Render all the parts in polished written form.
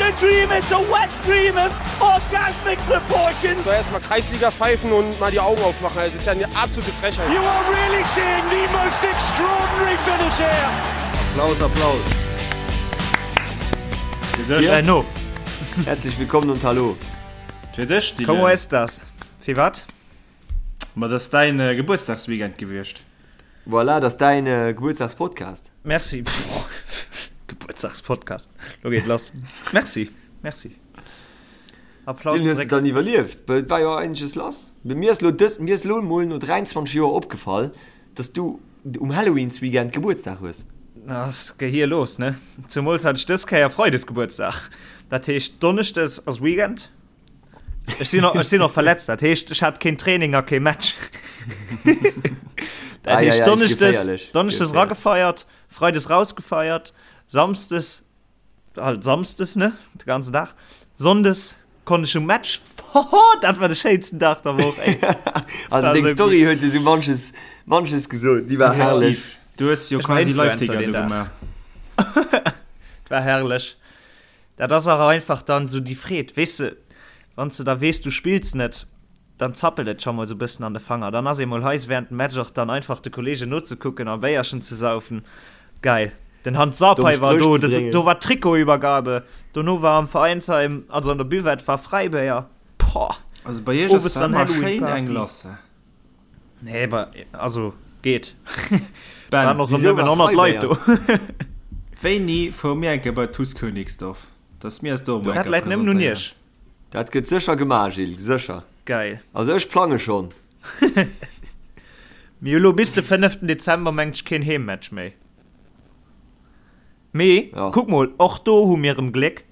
a dream, it's a wet dream of orgasmic proportions. So erstmal Kreisliga pfeifen und mal die Augen aufmachen. Das ist ja eine absolute Frechheit. You are really seeing the most extraordinary finish here. Applaus, Applaus. Äh, no. Herzlich willkommen und hallo. Fir dech, Dylan. Como estas? Fir wat? Ma dat ass däin Gebuertsdagsweekend gewiescht. Voilà, dat ass däin Gebuertsdagspodcast. Merci. Gebuertsdagspodcast. Lo geet lass. Merci, merci. Applaus Dylan, hues de zeréck. dann iwwerlieft? Well et war jo eigentlech lass. Mee mir ass lo dës, mir ass lo mol no 23 Joer opgefall, dass du um Halloweensweekend Gebuertsdag hues. Ass Gehir los, ne? Zemools hat ech dës Kéier Freides Gebuertsdag. Dat heescht Donneschdes ass Weekend. Ech sinn och, ech sinn och verletzt, dat heescht ech hat keen Training a kee Match. Dat heescht Donneschdes, Donneschdes ragefeiert, Freides rausgefeiert, Samsdes halt Samsdes ne, de ganzen Dag. Sonndes konnt ech um Match. Hoho, dat war de schéinsten Dag der Woch ey. Also deng Story huet jo sou manches, manches gesot, déi war herrlech. Du hues jo quasi Live-Ticker do gemaach. War herrlech. Dat ass awer einfach dann esou déi Freed, weess de, wann s de da weess, du spills net, dann zappelt et scho mol esou e bëssen an de Fanger. Dann ass ee mol heiss während dem Match och dann einfach de Kollegen nozekucken a Béierchen ze saufen. Geil. Den Hans Domm Sarpei war Spréch do, ze bréngen. do war Trikotübergabe, dono war am Veräinsheim, also an der Buvette war Fräibéier. Poah! Also bei iech ass Owes da dann ëmmer schéin eng Halloween-Party. lass. Nee, aber, also geet. Ben, Waren och wieso nëmmen war 100 Leit do. Fräibéier? Wéini fuere mir eng Kéier bei TuS Königsdorf, dass mir eis do emol eng Dat Kéier läit nëmmen un presentéieren? iech. Dat gëtt sécher gemaach, Gilles, sécher. Geil. Also ech plange schonn. Mir hu lo bis de 5. Dezember mengt ech keen Heemmatch méi. Mee Ja. kuck mol, och do hu mir erëm Gléck.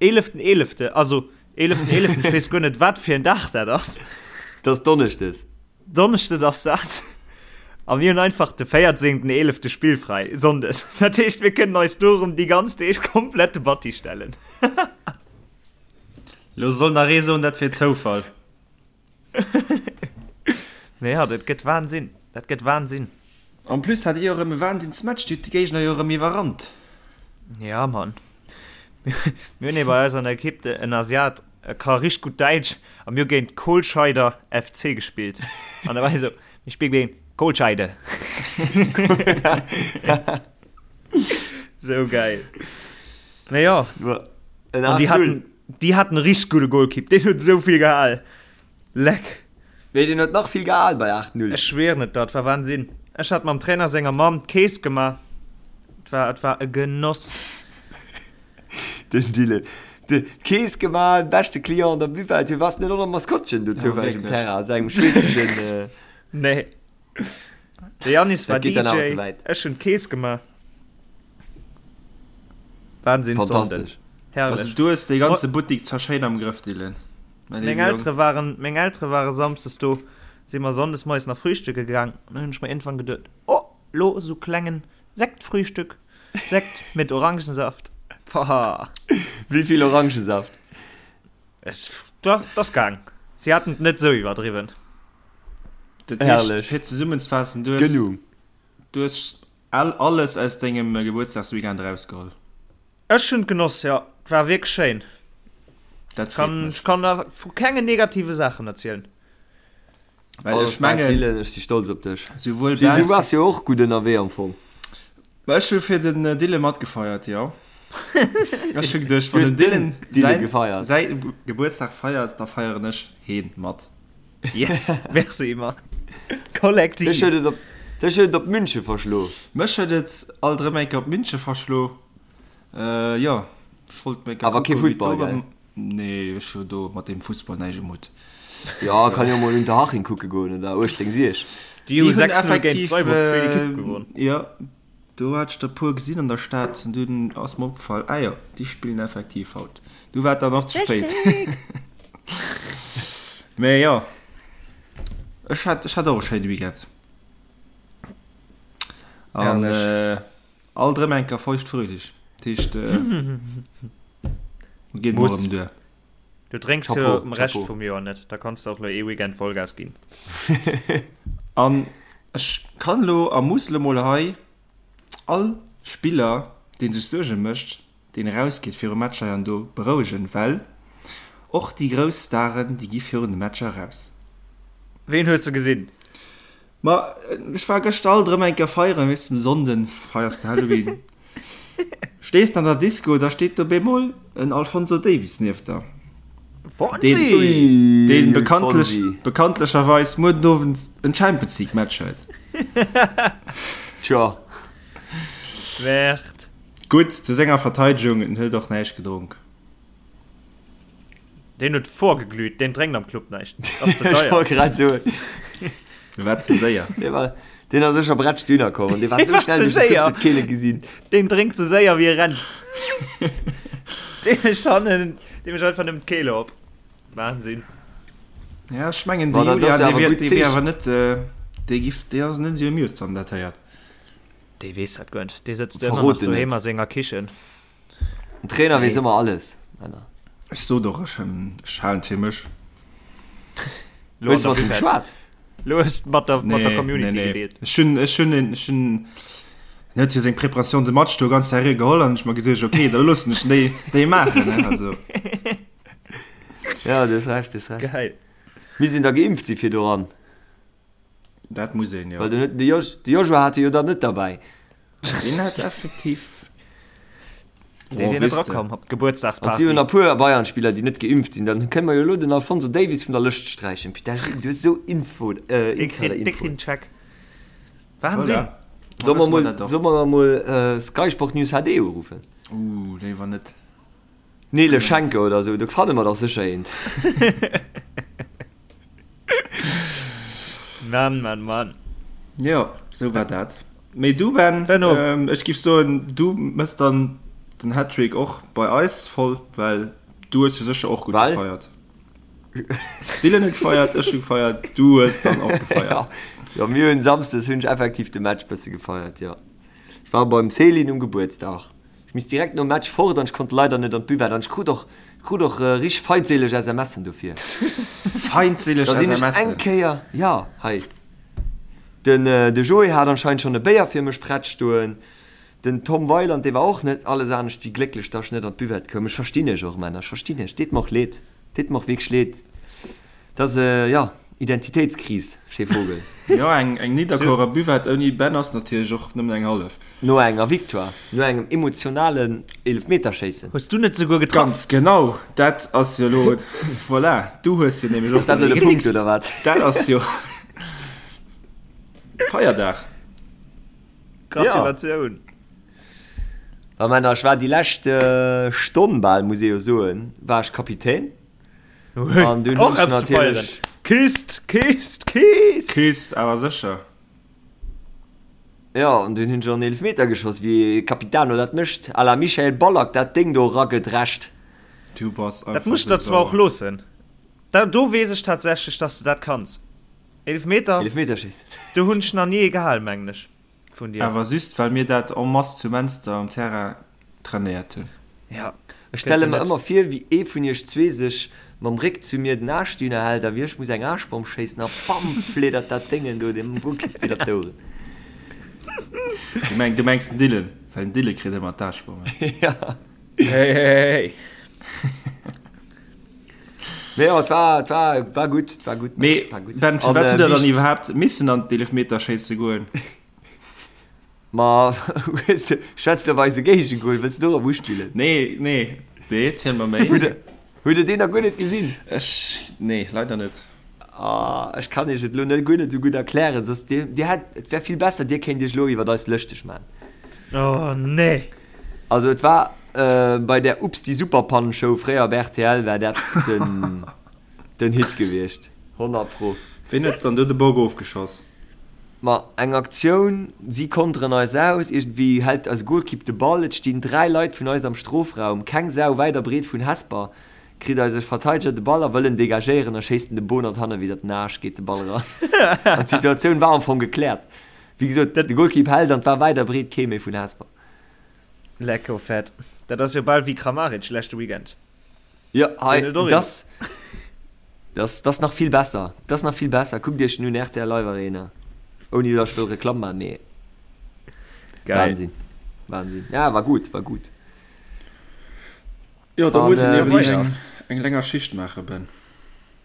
Eeleften eelefte, also eeleften eeleften, ech weess guer net wat fir en Dag dat ass. Dat ass Donneschdes. Donneschdes ass dat. A mir hunn einfach de véierzéngten eelefte spillfräi, Sonndes. Dat heescht mir kënnen eis do erëm déi ganz Deeg komplett de Batti stellen. Lo soll nach ee soen, dat wier Zoufall. Mee jo, dat gëtt Wahnsinn. Dat gëtt Wahnsinn. En plus hat dir jo erëm e Wahnsinnsmatch, dir hutt de Géigner jo erëm iwwerrannt. Ja, Mann. Mir hunn ee bei eis an der Ekipp, en Asiat, e ka richteg gutt Däitsch a mir hu géint Kohlscheider FC gespillt. An da war hie sou, Mir spille géint Kohlscheide. Sou gäil. Mee jo. An déi haten, déi haten e richteg gudde Golkipp, deen huet esou vill gehal. Leck. Nee, deen huet nach vill gehal bei 8, 0. Ech schwieren et der, et war Wahnsinn. Ech hat mam Trainer senger Mamm d'Kees gemaach. Et war, et war e Genoss. Den Dylan. D'Kees gemaach, beschte Client an der Buvette. Du wars net och nach Maskottchen do zoufälleg um Terrain a sengem schwedeschen. Nee. De Yannis war Dat geet dann awer DJ, ze wäit. ech hunn d'Kees gemaach. Wahnsinn Sonnden. Fantastesch. Herrlech. Also du hues dee ganze Buttik zwar schéin am Grëff, Dylan. Mäi Meng léiwe Jong. Eltere waren, meng Eltere ware samsdes do, si mer sonndes moies nach frühstücke gaang an dann hunn ech mer iergendwann geduet, oh, lo sou klengen Sektfrühstück, Sekt mit Orangensaft. Pah. Wéi vill Orangensaft? Ech, dat ass gaang. Si haten et net sou iwwerdriwwen. Dat heescht, Herrlech. fir zesummenzefaassen, du hues, Genug. du hues all, alles aus dengem Gebuertsdagsweekend erausgeholl. Ech hunn et genoss, jo. Et war wierklech schéin. Dat freet Kann, mech. ech kann da vu kengen negative Saachen erzielen. Well ech Respekt, mengen, Dylan, ech si stolz op dech. souwuel Gilles, du Ben, waars jo och gutt ënnerwee am Fong. Ma ech hu fir den Dylan matgefeiert, jo. Ech hu geduecht, Du wann hues den Dylan den Dylan säin, gefeiert. säi Gebuertsdag feiert, da feieren ech heen mat. Yes, merci Mann. Dech Kollektiv. huet et op, dech huet et op Münche verschlo. Mech huet et alt erëm eng Kéier op Münche verschlo. Jo, ech wollt meng Kéier Awer kee kucken, wéi et do Futtball, gell? erëm. Nee, ech hu do mat deem Fussball näischt um Hutt. Jo, kann jo mol Unterhaching kucke goen oder 18 Sieg. Déi hu Déi hunn 6-0 géint effektiv, Freiburg, zweet Ekipp, gewonn. jo, do hat ech der puer gesinn an der Stad an dunn ass mer opgefall, ah jo, déi spillen effektiv haut. Du war et dann och ze spéit. Richtig! Mee jo, ech hat, ech hat och e schéine Weekend. An Herrlech. alt erëm eng Kéier feucht fröhlich. Dat heescht, geet mol Muss. erëm duer. Du drénks jo Chapeau, am Rescht Chapeau. vum Joer net, da kanns de och lo ee Weekend Vollgas ginn. An ech kann lo a muss lo mol hei all Spiller, dee sech Suerge mécht, deen erausgeet viru Matcher an do berouegen, well och déi grouss Staren, déi gi virun de Matcher eraus. Ween hues de gesinn? Ma ech war gëschter alt erëm eng Kéier feieren, weess de, um Sonnden feiers de Halloween. Stees de an der Disco, da steet do bemol en Alphonso Davies nieft der. Fonsi! Deen, deen bekanntlech, bekanntlecherweis muer den Owend en Champions League Match huet. Tjo. Wäert. Gutt, zu senger Verteidegung, en huet och näischt gedronk. Deen huet vorgeglüht, deen drénkt am Club näischt. Ass ze Ech deier. wollt grad soen. Dee war ze séier. Dee war, deen ass sécher bretsch dünner komm an dee war Dee sou war schnell ze duerch de Club, séier. huet keen e gesinn. Deen drénkt ze séier wéi e rennt. Dee mécht hannen, dee mécht einfach nëmmen d'Kehle op. Wahnsinn. Ja, ech mengen, de Ma dat ass Julian, jo dee awer wier, gutt dee wier Zeechen. awer net, äh, dee giff, dee ass net esou amused, wann en dat héiert. Dee weess dat guer net. Dee sëtzt ëmmer Verrot nach en doheem net. a senger Kichen. Den Trainer weess ëmmer alles, Männer. Ech sot och, ech ech halen et fir mech. Lo Hues an du der mat him Buvette. geschwat? Lo hues de mat der, mat der Nee, nee, Community nee. gedeelt. Ech hunn, ech hunn, ech hunn, en huet jo seng Préparation de match do ganz seriö geholl an ech mer geduecht, okay, da loossen ech déi, déi maachen, ne, also. Ja, du hues Recht, du hues Recht. Geil. Mir sinn da geimpft si fir doran. Dat muss een, jo. Well den huet, de Jos, de Joshua hat e jo dann net derbäi. Deen hat effektiv. Dee wier net erakomm op An d'Gebuertsdagsparty. si hunn nach puer Bayern-Spiller, déi net geimpft sinn. Dann kënne mer jo elo den Alphonso Davies vun der Lëscht sträichen. Putain, Gilles, du hues esou Info, äh, Dee kritt, dee kritt Insider-Infoen. en Check. Wahnsinn. Voilà. Solle mer Wësse mer mol, dat och. solle mer mol Sky Sport News HD uruffen? Uh, léiwer net. Nele Schenke oder esou, do fanne mer dach sécher eent. Mann, Mann, Mann. Jo, sou war dat. Mee du Ben, Benno. ähm, ech giff soen, du mëss dann den Hattrick och bei eis voll, well du hues jo sécher och gutt Well? gefeiert. Dylan huet gefeiert, ech hu gefeiert, du hues dann och gefeiert. Jo, mir hunn Samsdes hunn ech effektiv de Match bësse gefeiert, jo. Ech war beim Céline um Gebuertsdag. Ech misst direkt nom Match fort an ech konnt leider net an d'Buvette an ech krut och krut och richteg feindséileg SMSen dofir. Feindséileg Da sinn ech SMSen? eng Kéier, jo, hei, den de Joé hat anscheinend schonn e Béier fir mech prett stoen, den Tom Weiland, dee war och net alles anescht wéi glécklech, dass ech net an d'Buvette koum. Ech verstinn iech och, Männer, ech verstinn iech, deet mer och leed, deet mer och wierklech leed. Dat ass, jo, Identitéitskris, Che Vogel. Jo, eng eng Nidderkuerer Buvette ouni Ben ass natierlech och nëmmen eng hallef. No enger Victoire, no engem emotionalen Eelefmeterschéissen. Hues du net souguer getraff? Ganz genau, dat ass jo elo, voilà, du hues jo nämlech och Ass dat elo de Punkt, oder wat? Dat ass jo Feierdag. Gratulatioun. Jo. Männer, ech war déi lescht Stonn bal, muss ee jo soen, war ech Kapitän. An dunn hunn ech natierlech. Kist, Kist, Kist! Kist, awer sécher. Jo, an dunn hunn ech och en Eelefmeter geschoss, wéi e Capitano dat mécht, à la Michael Ballack, dat Déng do eragedrescht. Du bass einfach Dat muss ech der sou zwar och sauer. loossen. Da, do weess ech tatsächlech, dass de dat kanns. Eelefmeter, Eelefmeterschéissen. do hunn ech nach ni ee gehal, mengen ech. Vun dir. Awer just well mir dat en masse zu Menster um Terrain trainéiert hunn. Ja, Ech stelle mer ëmmer vir, wéi ee vun iech zwee sech mam Réck zu mir den Aarschdüner hält a wéi ech muss eng Aarschbomm schéissen a bam fliddert dat Déngen do dem Golkipp widder d'Oueren. Du meng, du mengs den Dylan, well den Dylan kritt ëmmer d'Aarschbommen. Ja. Hey, hey, hey. Mee jo, et war, et war, war gutt, et war gutt. Mee war gutt. Ben, An, firwat äh, hutt der dann wicht- iwwerhaapt missen an d'Eelefmeterschéisse goen? Ma hues de, schwätz de op eise Géigegol, wëlls de dorop uspillen? Nee, nee, nee, ziel mer méi. Hutt der, hutt der deen nach guer net gesinn? Ech, nee, leider net. Ah, ech kann iech et elo net guer net esou gutt erklären, soss dir, dir hätt, et wär vill besser, dir kéint iech elo iwwert eis lëschteg man. Oh nee. Also et war bei der Ups die Superpannen-Show fréier op rtl war dat den, den Hit gewiescht, 100 pro. Ween huet dann do de Bock ofgeschoss? Ma eng Aktioun, si konteren eis aus, iergendwéi hält eise Golkipp de Ball, et stinn 3 Leit vun eis am Strofraum, keng Sau wäit a breet vun Hesper, kritt eise Verteideger de Ball a wëll en degagéieren a schéisst en de Bonert hanne widder den Aasch, geet de Ball eran an d'Situatioun war am Fong gekläert. Wéi gesot, de Golkipp hält an et war wäit a breet kee méi vun Hesper. Lecko fett. Dat ass jo bal wéi Kramaric leschte Weekend. Jo, hei, das, das, das nach vill besser. Das nach vill besser. Kuckt iech den un, rtl Live Arena. Ouni dass ech wëll Reklamm maachen, mee. Geil. Wahnsinn. Wahnsinn. Ja, war gutt, war gutt. Jo, da muss een eben eng, eng länger Schicht maachen, Ben.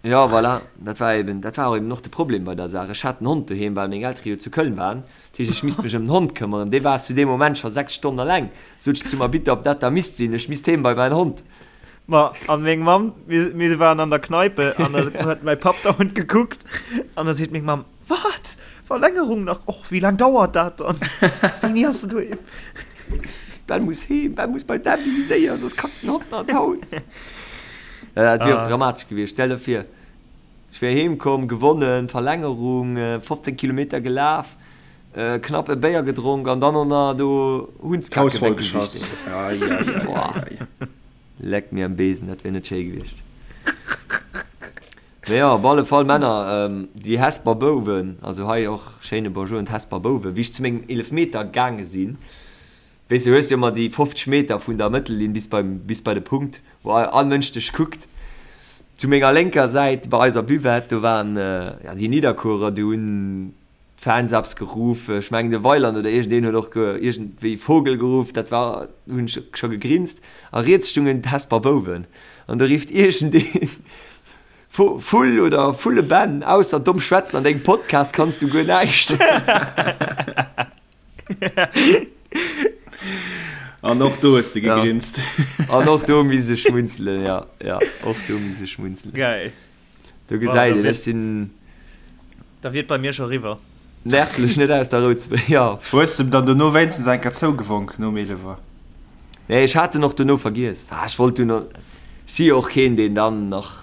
Jo, voilà, dat war eben, dat war och eben och de Problem bei der Saach. Ech hat den Hond doheem, well meng Eltere jo zu Köln waren. Dat heescht, ech misst mech ëm den Hond këmmeren. Dee war zu deem Moment scho 6 Stonnen eleng. Sot ech zum Arbitter, ob dat da misst sinn. Ech misst heem bei mäin Hond. Ma an meng Mamm, mir, mir waren an der Kneipe an da huet mäi Papp dauernd gekuckt an da seet meng Mamm, Wat? Verlängerung nach? Och, wéi laang dauert dat dann? Wéini ass en doheem? Ben muss heem, Ben muss bei d'Emily, séier, soss kackt den Hond nach d'Haus. Ja, dat wier och dramatesch gewiescht. Stell der vir, ech wier heem komm, gewonnen, Verlängerung, 15 Kilometer gelaf, knapp e Béier gedronk an dann och nach do Hundskacke weggewischt. Leck mir am Besen, dat wier net schéi gewiescht. Mee jo, op alle Fall Männer, déi Hesper Bouwen, also hei och schéine Bonjour un d'Hesper Bouwen, wéi ech zu mengem Eelefmeter gaange sinn, weess de, hues jo ëmmer déi 50 Meter vun der Mëttellinn bis beim, bis bei de Punkt, wou all Mënsch dech kuckt. Zu menger lénker Säit bei eiser Buvette, do waren, jo, déi Nidderkuerer, déi hunn d'Fans eppes geruff, ech mengen de Weiland oder iergendeen huet och iergendwéi Vogel geruff, dat war, do hunn ech scho gegrinst. A riets stungen d'Hesper Bouwen an do rifft iergendeen, Vull oder Vulle Ben, ausser domm schwätzen an dengem Podcast kanns du guer näischt. An och do hues de gegrinst. An och do misse schmunzelen, ja, ja, och do misse schmunzelen. Geil. Do gesäit een, ech sinn. Da wier et bei mir scho riwwer. Nervlech net aus der Rou ze bréngen, jo. Hues de em dann dono wéinstens eng Kéier zougewonk nom Eelewer? Nee, ech hat en och dono vergiess. Ah, ech wollt dunn, ech si jo och keen, deen dann nach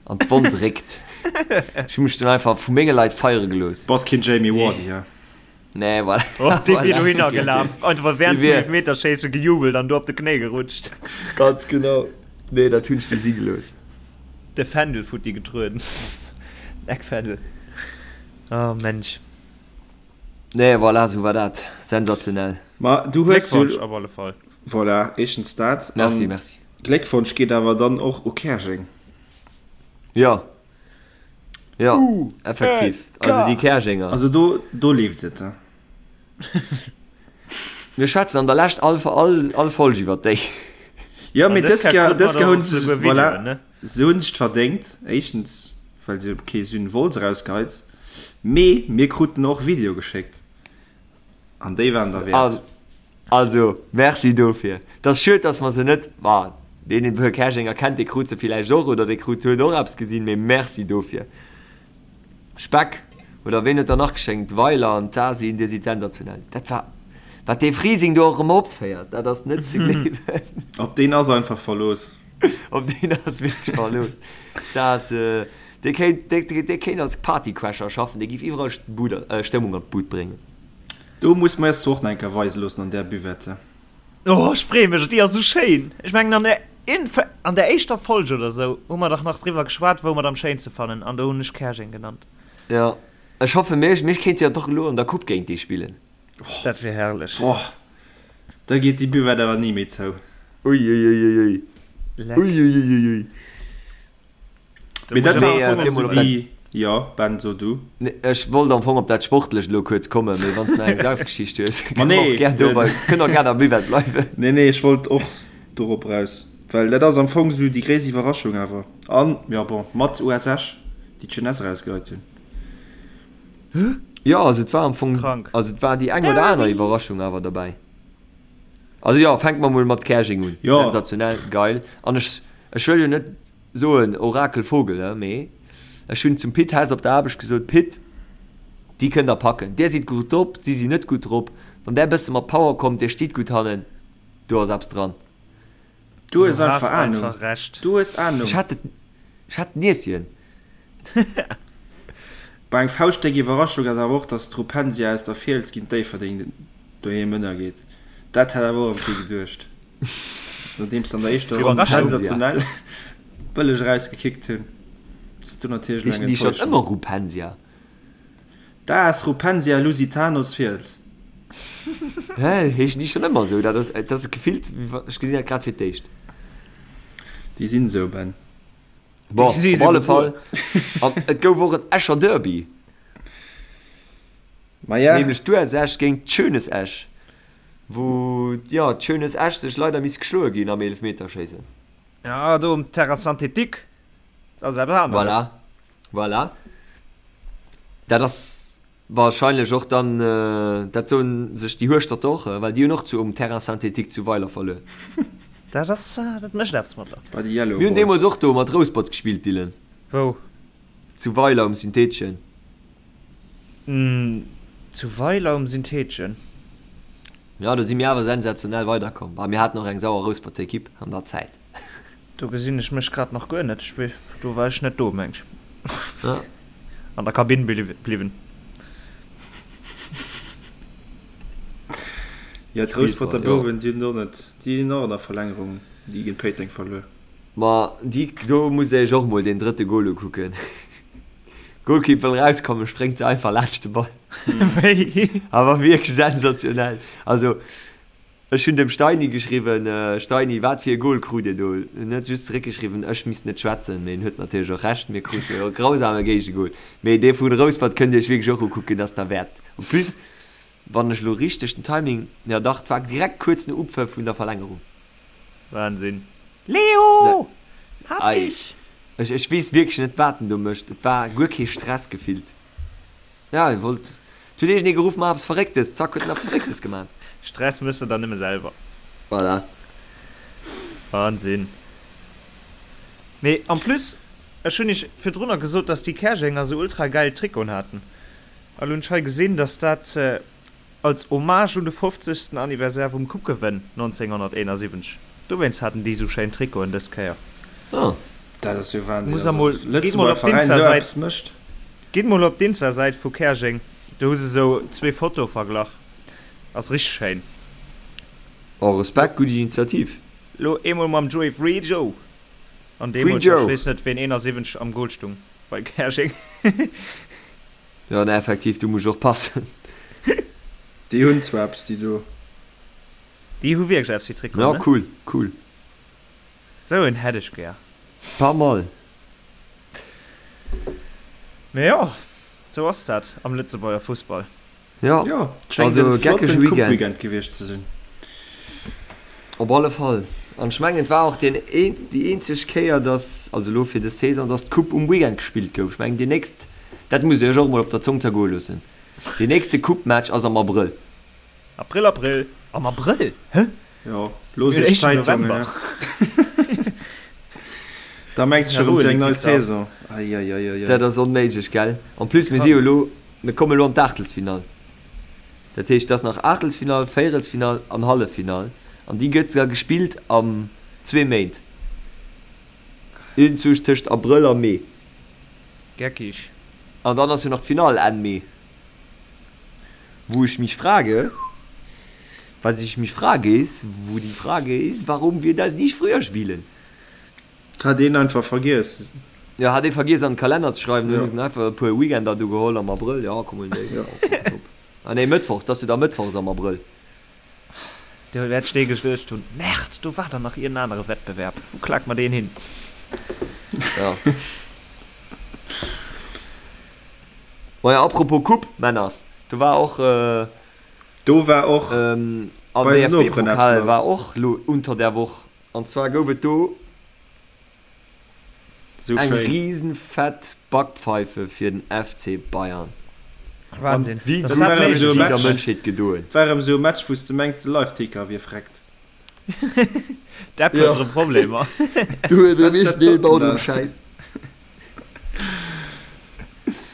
an d'Wonn dréckt. Ech hu mech dunn einfach vu menge Leit feiere gelooss. Bass keen Jamie Vardy, he? Nee, voilà. Oh, dee wier dohinner gelaf, einfach während dem Elfmeterschéisse gejubelt an do op de Knéi gerutscht. Ganz genau. Nee, dat hunn ech du si gelooss. De Fändel futti getrueden. Eckfändel. Oh Mensch. Nee, voilà, sou war dat. Sensationell. Ma du hues jo. Gléckwonsch op alle Fall. Voilà, éischtens dat. Merci, merci. Gléckwonsch geet awer dann och u Käerjeng. Jo. Jo, effektiv. Also déi Käerjenger. Also do, do leeft et. Mir schwätzen an der Lescht all, all, all Folg iwwer déi. Jo, mee dës Kéier, dës Kéier hunn se, voilà, se hunn sech verdéngt. Éischtens, well se kee Syn Wolz erausgeheit. Mee mir kruten och Video geschéckt. An déi waren derwäert. Also, merci dofir. Et ass schued, dass mer se net, ma deen e puer Käerjenger kennt, dee krut se villäicht och oder dee krut, huet och eppes gesinn, mee merci dofir. Speck, oder ween huet der nach geschénkt? Weiler an d'Asin, dir sidd sensationell. Dat war, wat dee Frising do och erëm opféiert, dat ass net ze gleewen. Op deen ass einfach Verlooss. Op deen ass wierklech Verlooss. Dat ass, dee kéint, dee kéint als Partycrasher schaffen, dee giff iwwerall Stëmmung an d'Bud bréngen. Do muss mer eis zwar och nach eng Kéier weise loossen an där Buvette. Oh, ech freeë mech, déi ass esou schéin. Ech mengen an der Inf an der éischter Folg oder sou hu mer dach nach driwwer geschwat, wou mer et am schéinste fannen, an do hunn ech Käerjeng genannt. Jo, ech hoffe mir mir kéinte jo doch elo an der Coupe géint déi spillen. Dat wier herrlech. Boah, da geet déi Buvette awer ni méi zou. Uiuiuiui. Leck. Uiuiuiui. Mee dat war am Fong esou déi, jo Ben, so du. Nee, ech wollt am Fong op dat Sportlecht elo kuerz kommen, mee wann s de nach eng Saufgeschicht hues, kënne mer och gär dobei, kënne och gär am Buvette bleiwen. Nee, nee, ech wollt och dorop eraus, well dat ass am Fong esou déi gréisst Iwwerraschung awer. An, jo bon, mat US Esch, déi d'Jeunesse erausgeheit hunn. Jo, also et war am Fong, Krank. also et war déi eng oder aner Iwwerraschung awer derbäi. Also jo, fänke mer mol mat Käerjeng un. Jo. Sensationell, geil. An ech, ech wëll jo net soen Orakel Vogel, he, mee ech hunn zum Pit Hess op der Aarbecht gesot, Pit, déi kënnt der packen. Där sidd gutt drop, si sinn net gutt drop. Wann där bësse mat Power kommt, dir stitt gutt hannen, do ass eppes dran. Du hues Du has einfach Ahnung. einfach Recht. Du hues Ahnung. Ech hat et, ech hat d'Nieschen. Bei eng fauschtdéck Iwwerraschung ass awer och, dass d'Rupensia aus der Fiels géint Déifferdeng doheem ënnergeet. Dat hätt awer och erëm kee geduecht, nodeems se an der éischter Ronn sensationell bëlleg erausgekickt hunn. Ass dat do natierlech elo eng Heeschen déi schonn Enttäuschung. ëmmer Rupensia? D'AS Rupensia Lusitanos Fiels. Hä, heeschen déi schonn ëmmer esou? Dat ass, dat ass gefillt, wéi wa, ech gesinn dat grad fir d'éischt. Déi sinn esou, Ben. Bon, op alle Fall, an et gouf och en Escher Derby. Ma ja. Nämlech d'US Esch géint d'Schönes Esch. Wou, jo, d'Jeunesse Esch sech leider misst geschloe ginn am Eelefmeterschéissen. Ja, do um Terrain synthétique, dat ass eppes aneres. Voilà, voilà. Dat ass wahrscheinlech och dann, dat soen sech déi Hueschterter och, well déi hunn och zu um Terrain synthétique zu Weiler verluer. Dat ass, dat mécht eppes mat der. Bei de Yellow Mir hunn Boys. deemools och do mat Rouspert gespillt, Dylan. Wou? Zu Weiler um Syntheteschen. Zu Weiler um Syntheteschen. Jo, do si mir awer sensationell weiderkomm. Bah, mir haten och eng sauer Rousperter Ekipp an der Zäit. Do gesinn ech mech grad nach guer net. Do war ech net do, meng ech. Ja. An der Kabinn bliwwen. Jo, d'Rousperter Bouwen, déi hunn och net, déi hunn och an der Verlängerung déi géint Péiteng verluer. Ma déi, do musst der iech och mol deen drëtte Gol ukucken. Golkipp wëll rauskommen, spréngt se einfach laanscht de Ball. Wéi? Awer wierklech sensationell. Also ech hunn dem Steini geschriwwen, Steini, wat fir e Gol krut Dir do? En huet just zeréckgeschriwwen, ech misst net schwätzen. Mee en huet natierlech och Recht, mir krute e grausame Géigegol. Mee dee vu Rouspert kënnt Dir iech wierklech och ukucken, dat ass derwäert. En plus, wann ech elo richteg den Timing, jo dach, et war direkt kuerz no Upfëff vun der Verlängerung. Wahnsinn. Leo! Hab dich! Ech, ech weess wierklech net, wat en do mécht. Et war guer kee Stress gefillt. Ja, e wollt, et huet iergendee geruff, Maach eppes Verrécktes! Zack, huet en eppes Verrécktes gemaach. Stress méchs de der nëmme selwer. Voilà. Wahnsinn. Mee en plus, ech hunn iech virdrunner gesot, dass déi Käerjenger sou ultra gäil Trikoten haten. A lo hunn ech hei gesinn, dass dat Als Hommage un de fofzegsten Anniversaire vum Coupe-Gewënn 1971. Dowéinst haten déi sou schéin Trikoten dës Kéier. Oh. Dat ass jo Wahnsinn, Muss also emol, dass e gitt mol Lëtzebuerger op Veräin esou d'Insta-Säit, eppes mécht. gitt mol op d'Insta-Säit vu Käerjeng, do hu se sou zwee Fotoe verglach. Ass richteg schéin. Oh, Respekt, gutt Initiativ. Lo eemol mam Joey Free Joe an Free deemools, ech Joe. weess net ween 71 am Goal stung bei Käerjeng. Jo, ne, effektiv, do muss ech och passen. Déi hunn zwar eppes, déi do. Déi hu wierklech eppes, déi Trikoten, Ja, ne? cool, cool. Sou een hätt ech gär. Pas mal. Mee jo, sou ass dat am Lëtzebuerger Fussball. Jo, Jo, et schéngt also e geckege flotten Weekend. Coupe-Weekend gewiescht ze sinn. Op alle Fall. An ech mengen, et war och deen een, déi eenzeg Kéier, dass, also elo fir dës Saison, dass d'Coupe um Weekend gespillt gouf. Ech mengen, déi nächst, dat musst Dir Iech och emol op der Zong zergoe loossen, deen nächste Coupe-Match ass am Abrëll. April, April! Am Abrëll? Hä? Jo, loosst Mir hunn iech éischten Zäit, Jongen, November. ne? Da mengs de scho rëm fir eng nei Saison. Eieieiei. Dat ass onméiglech, gell? En plus, mir si jo elo, mir komme elo an d'Aachtelsfinall. Dat heescht, et ass nach Aachtelsfinall, Véierelsfinall an Halleffinall. An déi gëtt da gespillt am zwee Méint. Iergendzwousch tëscht Abrëll a Mee. Geckig. An dann ass jo nach d'Finall Enn Mee. Wo ich mich frage, was ich mich frage ist, wo die Frage ist, warum wir das nicht früher spielen. Hat een einfach vergiess. Jo, hat ee vergiess an den Kalenner ze schreiwen, Jo. hunn en einfach e puer Weekender do geholl am Abrëll, jo komm huelen déi, jo top. Ah nee, Mëttwochs, 't ass jo da Mëttwochs am Abrëll. Do wäert ech dee geduecht hunn, Merde, do war der nach iergend anere Wettbewerb, wou klak mer deen hin? Jo. Maja, apropos Coupe, Männers, do war och. Do war och Am bei eisen Noperen eppes DFB-Pokal lass. war och lo unter der Woch, an zwar gouf et do Sou eng schéin. riesenfett Backpfeife fir den FC Bayern. Wahnsinn. Wéi Dass gutt dat war erëm méiglech esou e déi der Match, Mënschheet gedoen. war erëm esou e Match, wou s de mengs, de Live-Ticker wier vreckt. D'App huet Jo. erëm Problemer. Do huet Was erëm dat iergendeen doten baut da? erëm Schäiss.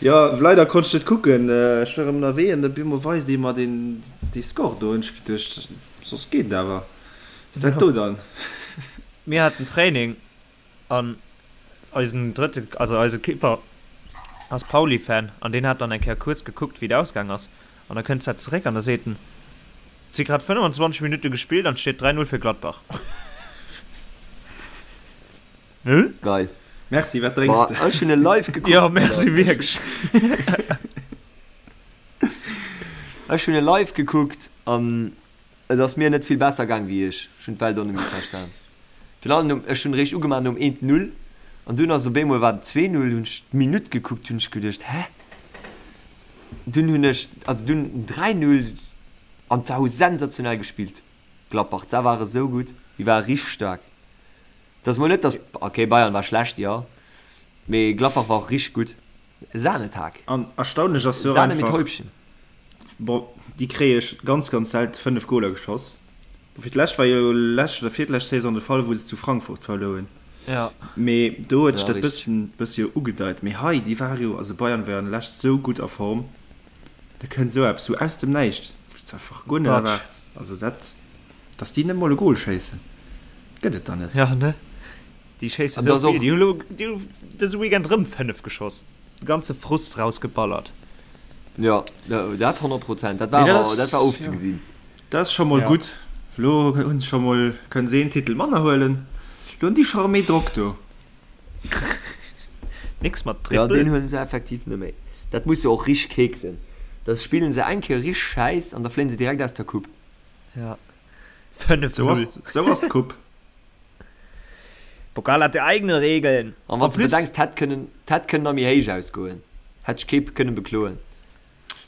Jo, leider konnt ech net kucken, ech war erëm ënnerwee an op eemol weist ee mer deen dee Score do hunn ech geduecht, soss geet et awer, was dat do dann? Mir haten Training an eisen drëtte, also eise Keeper ass Pauli-Fan an deen hat dann eng Kéier kuerz gekuckt wéi et ausgaang ass an da kënnt dat zeréck an da seet en, et si grad 25 Minutte gespillt an et steet 3, 0 fir Gladbach. Hm? Geil. Merci, wat drénks de? Ech hunn e live gekuckt. Jo, merci wierklech. Ech hunn e live gekuckt an et ass mir net vill besser gaang wéi iech. Ech hunn d'Welt och net méi verstan. Virun allem nom, ech hunn eréischt ugemaach nom 1, 0 an dunn ass op eemol war et 2, 0, hunn ech d'Minutt gekuckt, hunn ech geduecht, hä? Dunn hunn ech, also dunn 3, 0. An se hu sensationell gespillt, Gladbach. Se ware sou gutt, déi ware richteg staark. Et ass mol net, datt, okay, Bayern war schlecht, jo, mee Gladbach war och richteg gutt. Sahnetag. An erstaunlech ass jo och Sahne mit einfach, Häubchen. bon, déi kréie ganz, ganz selten 5 Goler geschoss. Bon, fir d'lescht war jo lescht oder virlescht Saison de Fall, wou se zu Frankfurt verluer hunn. Ja. Mee do huet sech Ja, dat richteg. bësschen, bëssi jo ugedeit. Mee hei, déi ware jo, also Bayern war jo an lescht sou gutt a Form, da kënnt esou eppes sou aus dem Näischt, wou s de einfach guer net Batsch. erwaarts. Also dat, dass déi net mol e Gol schéissen, gëtt et dann net. Ja, ne? Déi schéisse An sou dass och. vill. Déi hu lo, déi hu dëse Weekend rëm 5 geschoss. De ganze Frust rausgeballert. Jo, dat 100 Prozent. Dat war Mee dat awer, dat ass, war jo, ofzegesinn. dat ass scho mol Ja. gutt. Elo hunn se scho mol, kënnen se een Titel manner huelen. Elo hunn déi scho erëm méi Drock do. Nix mat Ja, Triple. deen huelen se effektiv net méi. Dat muss jo och richteg keek sinn. Da spillen se eng Kéier richteg Schäiss an da fléien se direkt aus der Coupe. Ja. 5, Sou 0. ass, sou ass d'Coupe. Pokal hat eigene Regeln. An wann En s de plus, bedenks, d'hätt kënnen, d'hätt kënnen nach méi héich ausgoen, hätt sech kee kënnen bekloen.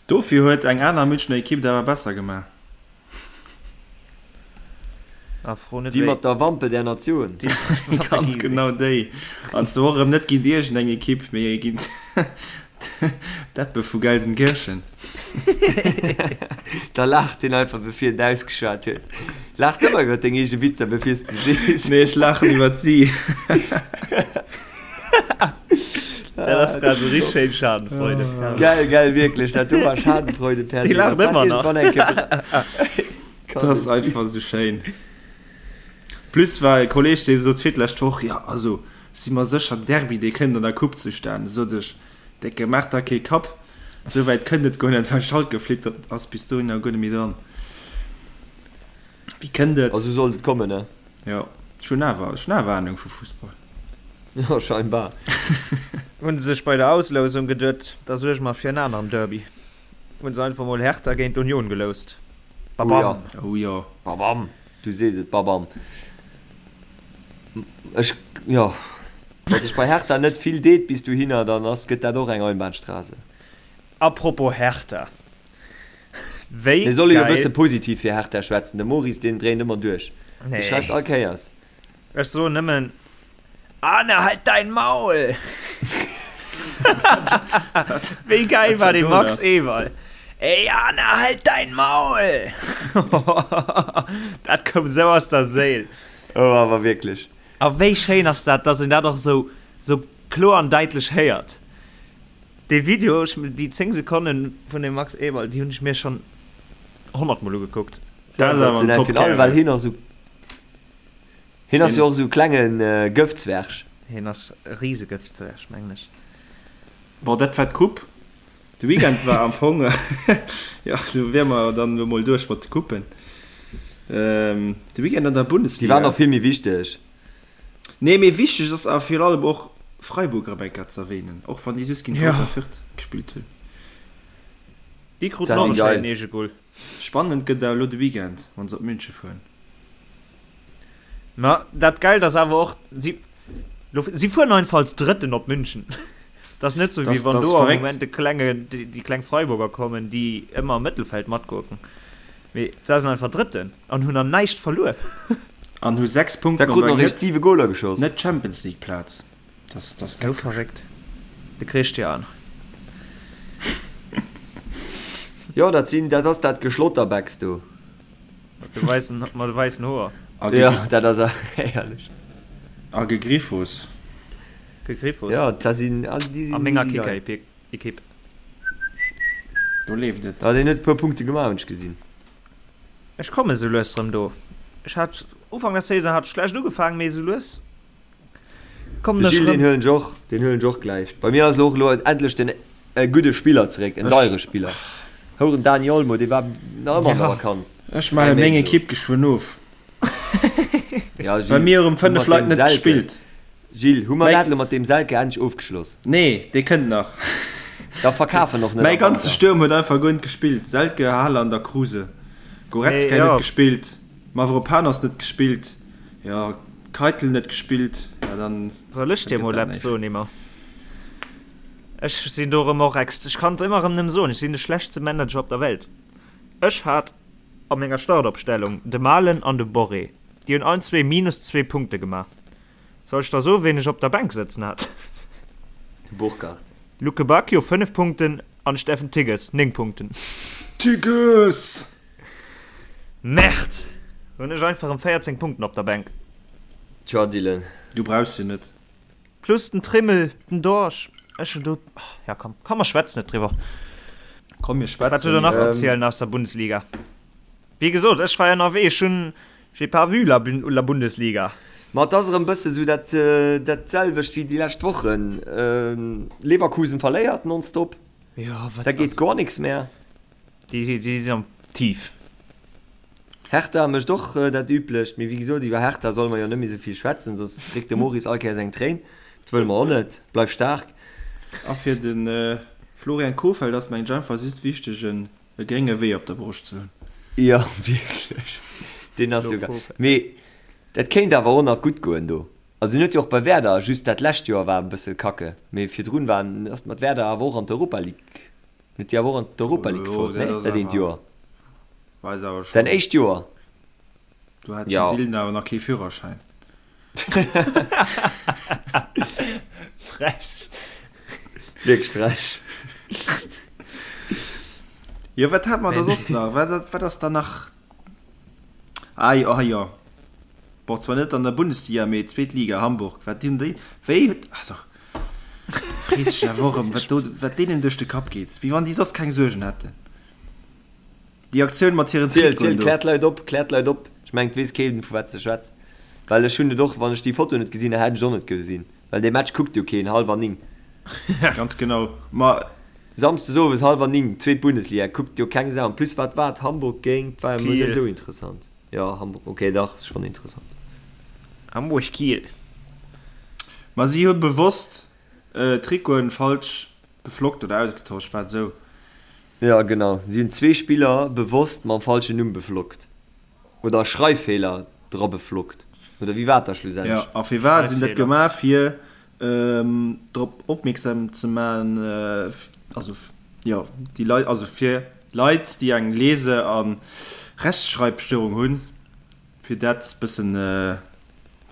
Dofir huet eng aner Münchner Ekipp et awer besser gemaach. Ah, fro net Déi wéi. mat der Wampe der Natioun. Déi mat der Ganz Giese. genau déi. An zwar och erëm net géint iergendeng Ekipp, mee géint d'Eppe vu Gelsenkirchen. Da laacht hien einfach bevir en ausgeschwat huet. Laachs de ëmmer iwwer deng eege Witzer bevir s de sees? Nee, ech laachen iwwer si. Dat ass grad esou richteg schéin Schadenfreude. Herrlech. Geil, geil, wierklech, dat do war Schadenfreude per Dee se. laacht Wann dat ëmmer nach. iergendwann eng Kéier Dat ass einfach esou schéin. Plus war e Kolleg, dee sot fir d'lescht Woch, jo also ech si mer sécher, Derby dee kënnt an der Coupe zustan. Sot ech, Décke, maach der kee Kapp. Sou wäit kënnt et guer net, well Schalke flitt ass bis dohinner guer net méi dran. Wéi kënnt et? A sou sollt et kommen, ne? Jo, ech hunn awer, ech hunn awer Ahnung vu Fussball. Jo, scheinbar. Hunn se sech bei der Auslousung geduet, da suerge mer fir en aneren Derby. Hunn se einfach mol Hertha géint Union geloust. Babam! Oh jo. Babam! Du sees et, babam. Ech, jo, wa sech bei Hertha net vill deet bis dohinner, dann ass, gëtt dat och eng Einbahnstraße. Apropos Hertha, wéi Mir solle jo e geil. bësse positiv fir Hertha schwätzen, de Maurice deen dréint ëmmer duerch, dee schreift Nee. all Kéiers. Ech soen nëmmen, Arne, halt dein Maul! Wéi geil war dee Max Eberl? Ey Arne, halt dein Maul! Dat koum sou aus der Séil. Oh, awer wierklech. A wéi schéin ass dat, dass een dat och sou, sou kloer an däitlech héiert. Dee Video, ech, déi 10 Sekonnen vun dem Max Eberl, déi hunn ech mir schonn 100 mol ugekuckt. Dat ass awer en Sensationell, virun allem well Top-Kerl. hien och sou, hien ass jo och sou e klenge Gëftzwerg. Hien ass e Risegëftzwerg, mengen ech. Bon, dat war d'Coupe. De Weekend war am Fong, jo, do wier mer dann elo mol duerch mat de Coupen. De Weekend an der Déi Bundesliga. waren och vill méi wichteg. Nee, mee wichteg ass awer virun allem och Freiburg erëm eng Kéier ze erwähnen, och wann déi just géint Ja. Greuther Fürth gespillt hunn. Déi kruten Dat och si e geil. schéinen Eegegol. Spannend gëtt awer elo de Weekend, wann se op München fueren. Ma dat Geilt ass awer och, si, lo, si fueren einfach als Drëtten op München. Dat ass net sou, wéi Das, wann das do am verréckt. Moment de klenge, déi, déi kleng Freiburger kommen, déi ëmmer am Mëttelfeld matgurken. Mee se sinn einfach Drëtten an hunn nach näischt verluer. An hu 6 Se Punkten op kruten eng och eréischt net, 7 Goler geschoss. net Champions League Plaz. Das, das Sou verréckt. De Christian. Jo, dat sinn, dat ass dat Geschlotterbecks do. Mat de weissen, mat de weissen Hoer. A Ja, gegriff, dat ass herrlech. a Gegriffos. Gegriffos. Ja, dat sinn, also déi A sinn, déi menger si geil. Kicker-Ekipp. Do leeft et. Ah, deen huet e puer Punkte gemaach, hunn ech gesinn. Ech komme sou lues rëm do. Ech hat Ufank der Saison hat schlecht ugefaangen, mee sou lues kommen De ech Gilles, deen rëm. huelen ech och, deen huelen ech och gläich. Bei mir ass elo och elo endlech den e gudde Spiller zeréck, en Ech, deiere Spiller. Houren Dani Olmo, dee war nach ëmmer an der Ja. Vakanz, ech 3 melle meng Méint elo. Ekipp geschwënn of. Ja, Bei Gilles, mir hu hu 5 mat Leit deem net Selke, gespillt. Gilles, hu mer Mäi, dat elo mat deem Selke endlech ofgeschloss? nee, dee kënnt nach. Da verkaf en och net Mäi am ganze Wanter. Stuerm huet einfach guer net gespillt. Selke, Haaland a Kruse. Mee Goretzka net jo. gespillt. Mavropanos net gespillt. Jo, Keitel net gespillt. Ja, dann, Soll ech dann dir gëtt mol dat eppes näischt. soen, Emma? Ech sinn do erëm och ex, ech kann et ëmmer erëm nëmme soen, ech sinn de schlechtste Manager op der Welt. Ech hat. a menger Startopstellung, de Malen an de Borré. Déi hunn allen zwee minus zwee Punkte gemaach. Soll ech da soen, ween ech op der Bänk sëtzen hat? De Burkardt. Lukebakio 5 Punkten an Steffen Tigges 9 Punkten. Tigges! Merde! Hunn ech einfach em 14 Punkten op der Bänk. Tja, Dylan. Du brauchs se net. Plus den Trimmel, den Dorsch. Ech hunn do, ja komm, komm mer schwätzen net driwwer. Komm mir schwätzen. Wat hutt der nach ze zielen aus der Bundesliga? Wéi gesot, ech war ënnerwee, ech hunn, j'ai pas vu la, la Bundesliga. Ma et ass erëm bësse sou dat, dat selwecht wéi déi lescht Wochen. Leverkusen verléiert nonstop. Jo, wat, Da geet goer nix mehr. Déi, déi sinn am Tief. Hertha mécht och dat Üblecht, mee wéi gesot, iwwer Hertha solle mer jo net méi sou vill schwätzen, soss dréckt de Maurice all Kéiers eng Tréin. Dat wëlle mer och net. Bleif staark. A fir de Florian Kohfeldt ass mengen ech einfach just wichteg en e grénge Wee op der Broscht ze hunn. Jo, wierklech. Deen ass jo geil. Mee dat kéint awer och nach gutt goen do. Also en huet jo och bei Werder, just dat lescht Joer war e bësse kacke, mee virdrun war en, ass mat Werder awer och an d'Europa League, huet déi awer och an d'Europa League gefouert, ne? Dat Dat eent Joer. Weis awer Säin schonn. éischt Joer. Do hat den Jo. Dylan awer nach kee Führerschäin. Frech. Wierklech frech. Jo, wat hat mer da soss nach? Wat, wat ass da nach? Ah jo, ah jo. Bon, zwar net an der Bundesliga, mee zweet Liga, Hamburg. Wat hunn déi, wéi, also, frees dech awer och erëm, wat do, wat deenen duerch de Kapp geet. Wéi wann déi soss keng Suergen hätten. Déi Aktioun mat hiren Ziel, Trikoten ziel, do. klär d'Leit op, klär d'Leit op. Ech mengen, et weess keen, vu wat s de schwätz. Well ech hunn et och, wann ech déi Foto net gesinn hätt, hätt ech et och net gesinn. Well dee Match kuckt jo keen, hallwer 9. Ganz genau. Ma. Samsdes owes hallwer 9, zweet Bundesliga, kuckt jo keng Sau. En plus, wat war et, Hamburg géint, war jo mol net Kiel. esou interessant. Jo, Hamburg, ok, dach, ass schonn interessant. Hamburg-Kiel. Ma si hu bewosst d'Trikoten falsch beflockt oder ausgetosch, war et esou? Jo genau, si hunn zwee Spiller bewosst mam falschen Numm beflockt oder Schreiffeeler dra beflockt oder wéi war et da Jo, schlussendlech? a firwat si hunn dat Schreiffeeler. gemaach? Fir drop opmierksam ze man, also jo déi Leit, also fir Leit déi eng Lese a Rechtschreibstörung hunn, fir dat bëssen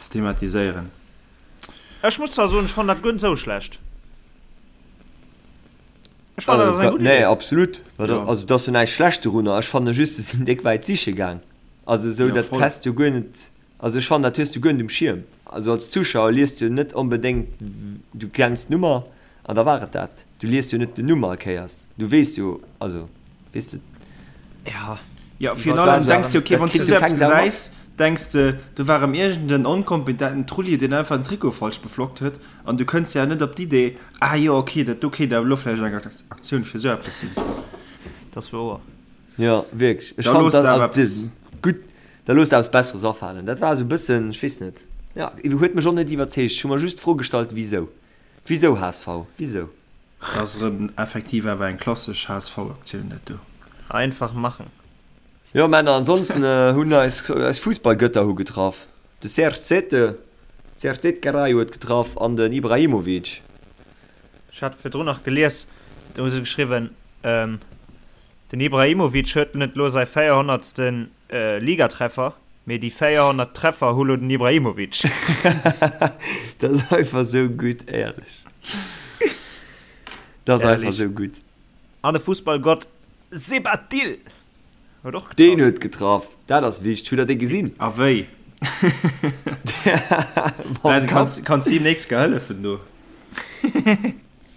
ze thematiséieren. Ech muss zwar soen, ech fannen dat guer net esou schlecht. Ech fannen, dat ass eng gutt Nee, Idee. absolut. Ja. Also et ass jo näischt schlecht dorunner. Ech fanne just, se sinn déck wäit siche gaang. Also esou, Ja, dat voll. häss du guer net, also ech fannen, dat hues du guer net um Schierm. Also als Zuschauer liest du net onbedéngt, du kenns d'Nummer an da war et dat. Du liest jo net den Numm all Kéiers. Du weess jo, also weess de. Ja. Jo, virun Dat allem war denks de, okay, dat wann s du kritt jo esou eppes keng Sau mat. gesäis, denks de, do war erëm iergend en onkompetenten Trulli, deen einfach den Trikot falsch beflockt huet, an du kënns ja net op d'Idee, ah jo, okay, dat do kéint awer elo vläicht eng Aktioun fir esou eppes sinn. Dat ass wouer. Jo, wierklech. Ech Da fand looss dat, de awer also eppes. gutt, da looss der eppes Besseres afalen. Dat war esou e bëssen, ech weess net, jo, huet mech och net iwwerzeegt. Ech hu mer just d'Fro gestallt, wisou? Wisou HSV? Wisou? Dat ass erëm effektiv awer eng klassesch HSV-Aktioun, dat do. Einfach machen. Jo Männer, ansonsten hunn eis eis Fussballgötter hu getraff. De Serge Zete, Serge Zete-Garay huet getraff an den Ibrahimovic. Ech hat virdrun nach gelies, do hu se geschriwwen, den Ibrahimovic huet net lo säi 400. Ligatreffer, mee déi 400 Treffer hu lo den Ibrahimovic. Dat ass einfach sou gutt, éierlech. Dat ass einfach sou gutt. An de Fussballgott Sebatil huet och getraff. Deen huet getraff, dat ass wichteg. Hutt der dee gesinn? A wéi? Ben, kanns, kanns him nächst Kéier hëllefen do?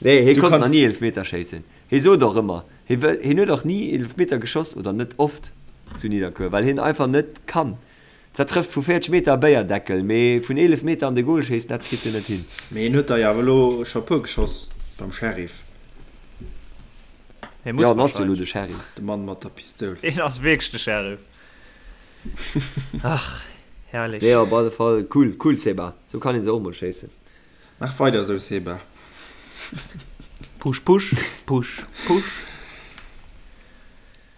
Nee, hie Du konnt kanns. nach ni Eelefmeter schéissen. Hie sot och ëmmer, hie wëll, hien huet och ni Eelefmeter geschoss oder net oft zu Nidderkuer, well hien einfach net kann. Zwar trëfft vu 40 Meter e Béierdeckel, mee vun 11 Meter an de Gol schéissen, dat kritt hien net hin. Mee hien huet der jo awer elo scho e puer geschoss beim Sheriff. Hie muss Jo, en ass jo elo wahrscheinlech. de Sheriff. De Mann mat der Pistoul. Hien ass wierklech de Sheriff. Ach, herrlech. Nee, op alle Fall cool, cool Seba. Sou kann een se och mol schéissen. Maach weider esou Seba. Push, push, push, push.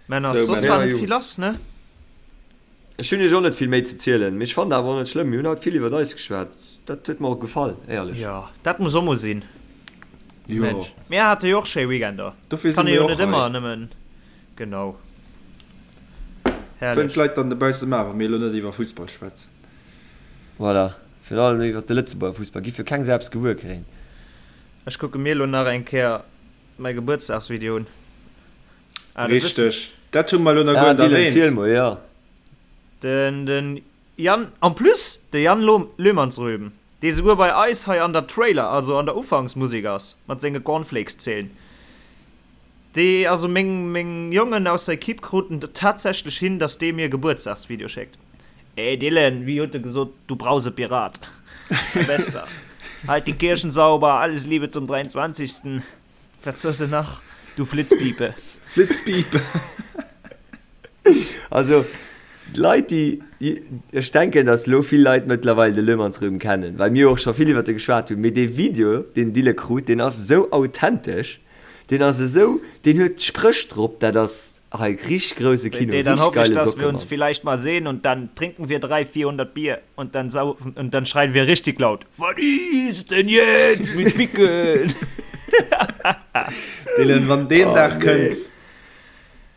Männer, Sou, soss Männer. war Ja, net vill Jungs. lass, ne? Ech hunn iech och net vill méi ze zielen, mee ech fannen awer och net schlëmm. Mir hunn haut vill iwwert eis geschwat. Dat huet mer och gefall, éierlech. Jo, dat muss och mol sinn. Jo. Mensch, mir hate jo och schéi Weekender. Dofir si Kann ee mir jo och net hei. ëmmer nëmmen, genau. Wëllen d'Leit dann dobausse maachen, wa mir elo net iwwer Fussball schwätzen. Voilà, virun allem iwwer de Lëtzebuerger Fussball giff jo keng Sau eppes gewuer kréien. Ech kucke mir elo nach eng Kéier mäi Gebuertsdagsvideo un. Ah, du wëss. Richteg, dat hu mer elo nach Ah, guer net Dylan, ziel erwähnt. mol, jo. Den, den Yann, en plus de Yann Löhmannsröben, dee souguer bei eis hei an der Trailer, also an der Ufanksmusek ass, mat senge Cornflakes-Zeen. Dee, also meng, meng Jongen aus der Equipe kruten et tatsächlech hin, dass dee mir e Gebuertsdagsvideo schéckt. Ey Dylan, wéi huet e gesot, du Brausepirat, mein Bester, halt die Kirchen sauber, alles Liebe zum 23. Wat sot en nach? Du Flitzpiepe. Flitzpiepe. Also, d'Leit, déi, ech denken, datt elo vill Leit mëttlerweil de Löhmannsröben kennen, well mir jo och scho vill iwwert e geschwat hunn, mee dee Video, deen Dylan krut, deen ass esou authentesch. Deen ass esou, deen huet Spréch drop, dat ass hei richteg grousse Kino, Seht, dann richteg hoffe ich, geile dass Socke, wir uns Mann. vielleicht mal sehen und dann trinken wir 3, 400 Bier und dann saufen und dann schreien wir richtig laut, Was ist denn jetzt mit Ficken? Dylan, wann deen Oh Dag nee. kënnt,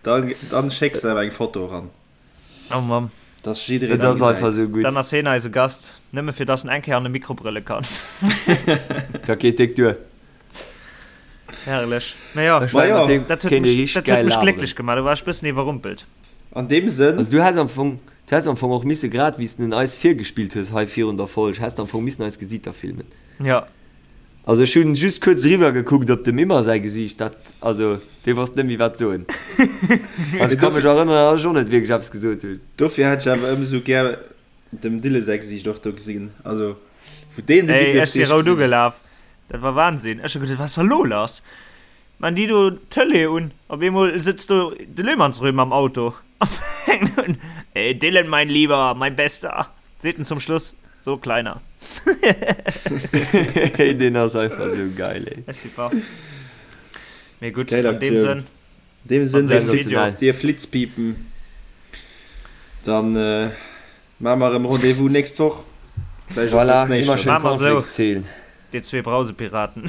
dann, dann schécks de awer eng Foto eran. Oh Mann. Dass jiddereen Et ass gesäit. einfach esou gutt. Dann ass heen eise Gast, nëmme fir dass en eng Kéier an de Mikro brëlle kann. Dat geet déck duer. Herrlech. Naja, Ech mengen, mat deem dat huet kéint ee mech, richteg dat huet gäil mech laberen. glécklech gemaach. Do war ech bëssen iwwerrumpelt. An deem Sënn. Also du häss am Fong, du häss am Fong och misse, grad wéi s de en eis virgespillt hues hei virun der Folg, häss de am Fong missen eis Gesiiter filmen. Ja. Also ech hunn just kuerz eriwwer gekuckt op dem Immer säi Gesiicht, dat, also dee wosst net méi wat soen. An ech ka mech erënneren, datt ech och net wierklech eppes gesot hunn. Dofir hätt ech awer ëmsou gär Dem Dille säi Gesiicht och do gesinn, also wou deen de Ey, Video ech si fir rout gesinn. ugelaf, dat war Wahnsinn. Ech hu geduet, wat ass da lo lass? Maan déi do d'Tëlee un, op eemol sëtzt do de Löhmannsröhm am Auto a fänkt un, Ey Dylan, mein Lieber, mein Bester, seet en zum Schluss, so Kleiner. Hey, deen ass einfach esou geil, ey. Ech si baff. Mee gutt, Geil an deem Aktioun. Sënn. An deem Sënn, dir, Sensationell. dir Flitzpiepen, dann äh, maache mer erëm Rendez-vous nächst Woch. Vläicht och Voilà, bëssen immer éischter. schön Maache mer esou. Cornflakes zählen. Dir zwee Brausepiraten.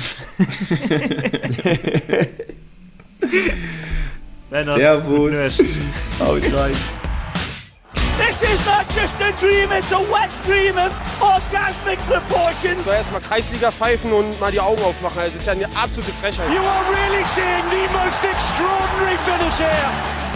Männers, gutt Servus. Nuecht. Haut rein. This is not just a dream, it's a wet dream of orgasmic proportions. So erstmal Kreisliga pfeifen und mal die Augen aufmachen. Das ist ja eine absolute Frechheit. You are really seeing the most extraordinary finish here.